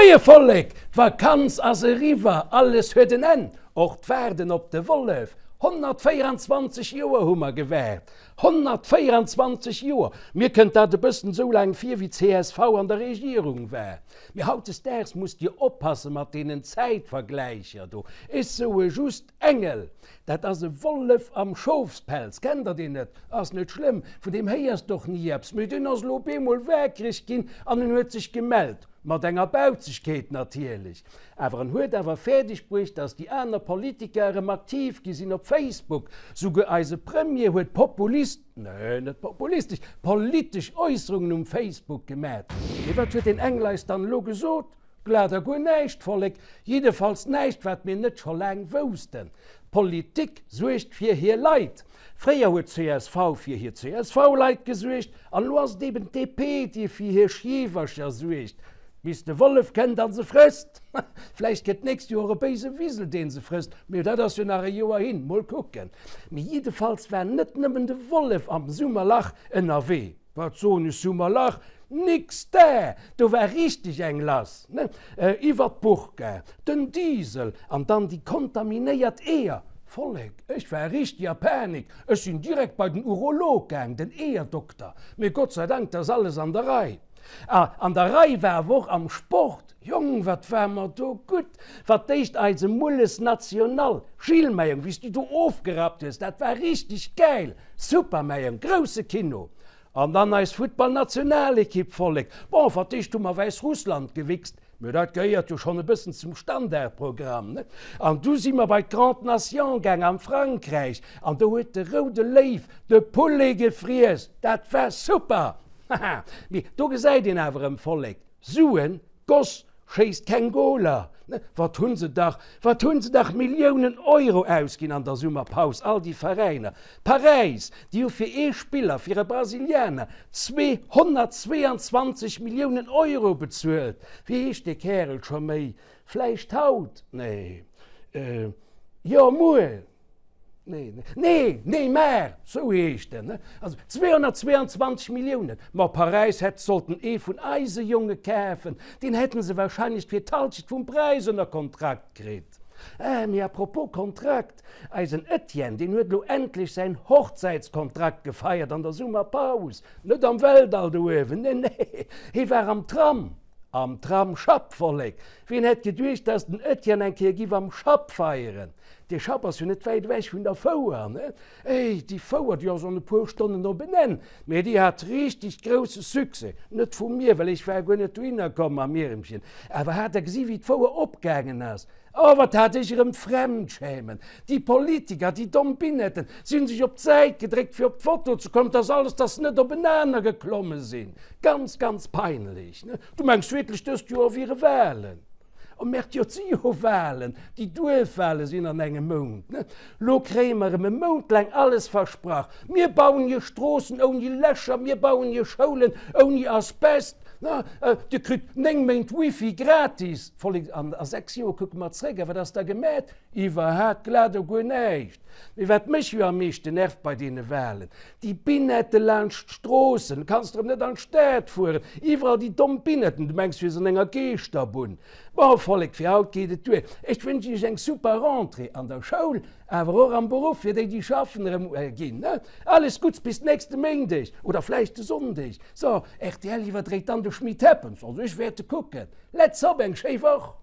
Moie Vollek! D'Vakanz ass eriwwer, alles huet en Enn, och d'Waarden op de Wollef. 124 Joer hu mer gewaart, 124 Joer! Mir kënnt dat e bëssen esou laang vir, wéi csv an der Regierung war. Mee hautdesdaags musst Dir oppasse mat deenen Zäitvergläicher do. Ech soe just, Engel! Dat ass e Wollef am Schofspelz. Kennt der deen net? Ass net schlëmm, vun deem héiers d'och ni eppes. Mee deen ass elo op eemol waakreg ginn an en huet sech gemellt. Mat enger Bauzegkeet natierlech. Awer en huet awer fäerdeg bruecht, datt déi aner Politiker erëm aktiv gi sinn op Facebook. Souguer eise Premier huet populist, nee, net populistesch, politesch Äusserungen um Facebook gemat. Mee wat huet deen Engel eis dann elo gesot? Glat a guer näischt, Vollek, jiddefalls näischt, wat mir net scho laang woussten. D'Politik suergt fir hir Leit. Fréier huet csv fir hir CSV-Leit gesuergt, an elo ass et eben d'DP, déi fir hir Schiewercher suergt, bis de Wollef kënnt a se frësst. Vläicht kënnt d'nächst Joer e béise Wisel, dee se frësst, mee dat ass jo nach e Joer hin. Mol kucken. Mee jiddefalls war net nëmmen de Wollef am Summerlach ënnerwee. Wat soen ech, Summerlach? Nix da! Do war richteg eng lass, ne? Iwwer d'Burka, den Diesel an dann déi kontaminéiert Eeër. Vollek, ech war richteg a Panik. Ech sinn direkt bei den Urolog gaang, den Eeërdokter. Mee Gott sei Dank, 't ass alles an der Rei. A an der Rei war awer och am Sport. Jong, wat war mer do gutt! Wat d'éischt eise Mulles National, Gilles, mäi Jong, wéi s du do ofgerappt hues, dat war richteg gäil! Super, mäi Jong, grousse Kino! An dann eis Futtballnationalekipp, Vollek! Bon, wat d'éischt hu mer Wäissrussland gewichst, mä dat gehéiert jo schonn e bëssen zum Standardprogramm, ne? An du si mer bei d'Grande Nation gaang am Frankräich, an do huet de roude Léiw de Poulet gefriess, dat war super! Haha, mee do gesäit een awer erëm, Vollek, Suen, Goss schéisst keng Goler, ne? Wat hunn se dach, wat hunn se dach Milliounen Euro ausginn an der Summerpaus, all déi Veräiner. Paräis, déi hu fir ee Spiller, fir e Brasilianer, 222 Milliounen Euro bezuelt. Wéi heescht dee Kärel scho méi? Vläicht haut? Nee. Jo, muer. Nee, nee, Neymar, sou heescht en, ne? Also 222 Milliounen. Ma Paräis hätt sollten ee vun eise Jonge kafen, deen hätten se wahrscheinlech fir d'Halschent vum Präis ënner Kontrakt kritt. Ah, mee à propos Kontrakt, eisen Etienne, deen huet elo endlech säin Hochzäitskontrakt gefeiert an der Summerpaus. Net am Weltall do uewen, nee, nee, hee war am Tram. Am Tram Schapp, Vollek! Wien hätt geduecht, dass den Etienne eng Kéier giff am Schapp feieren? Dee Schapp ass jo net wäit ewech vun der Fouer, ne? Éi, déi Fouer, déi ass an e puer Stonnen op en Enn, mee déi hat richteg grousse Succès. Net vu mir, well ech war guer net dohinner komm mam Ieremchen. Awer hat der gesi wéi d'Fouer opgaangen ass? Oh, wat hat ech erëm Fremdschämen! Déi Politiker, déi domm Binetten, si hunn sech op d'Säit gedréckt fir op d'Foto ze kommen, dass alles, dass se net openaner geklomme sinn. Ganz, ganz peinlech, ne? Du mengs wierklech dëst Joer wiere Wahlen? Oh Merde, jo et si jo Wahlen, déi Duerfwahlen sinn an engem Mount, ne? Lo kréie mer erëm e Mount laang alles versprach, mir bauen iech Stroossen ouni Lächer, mir bauen iech Schoulen ouni Asbest, ne? Dir kritt 9 Méint Wifi gratis. Vollek, an a 6 Joer kucke mer zréck, a wat ass da gemat? Iwwerhaat glat o guer näischt. Mee wat mech jo am meeschten nervt bei deene Wahlen, déi Binette laanscht d'Stroossen, du kanns erëm net an d'Stad fueren, iwwerall déi domm Binetten, du mengs du wiers an enger Geeschterbunn. Bon Vollek, fir haut geet et duer. Ech wënschen iech eng super Rentrée an der Schoul, awer och am Beruff, fir déi déi schaffen erëm ginn. Alles Gutts bis nächste Méindeg oder vläicht de Sonndeg. So, rtl iwwerdréit dann de Schmit Happens, also ech wäerte kucken. Let's hop, eng schéi Woch!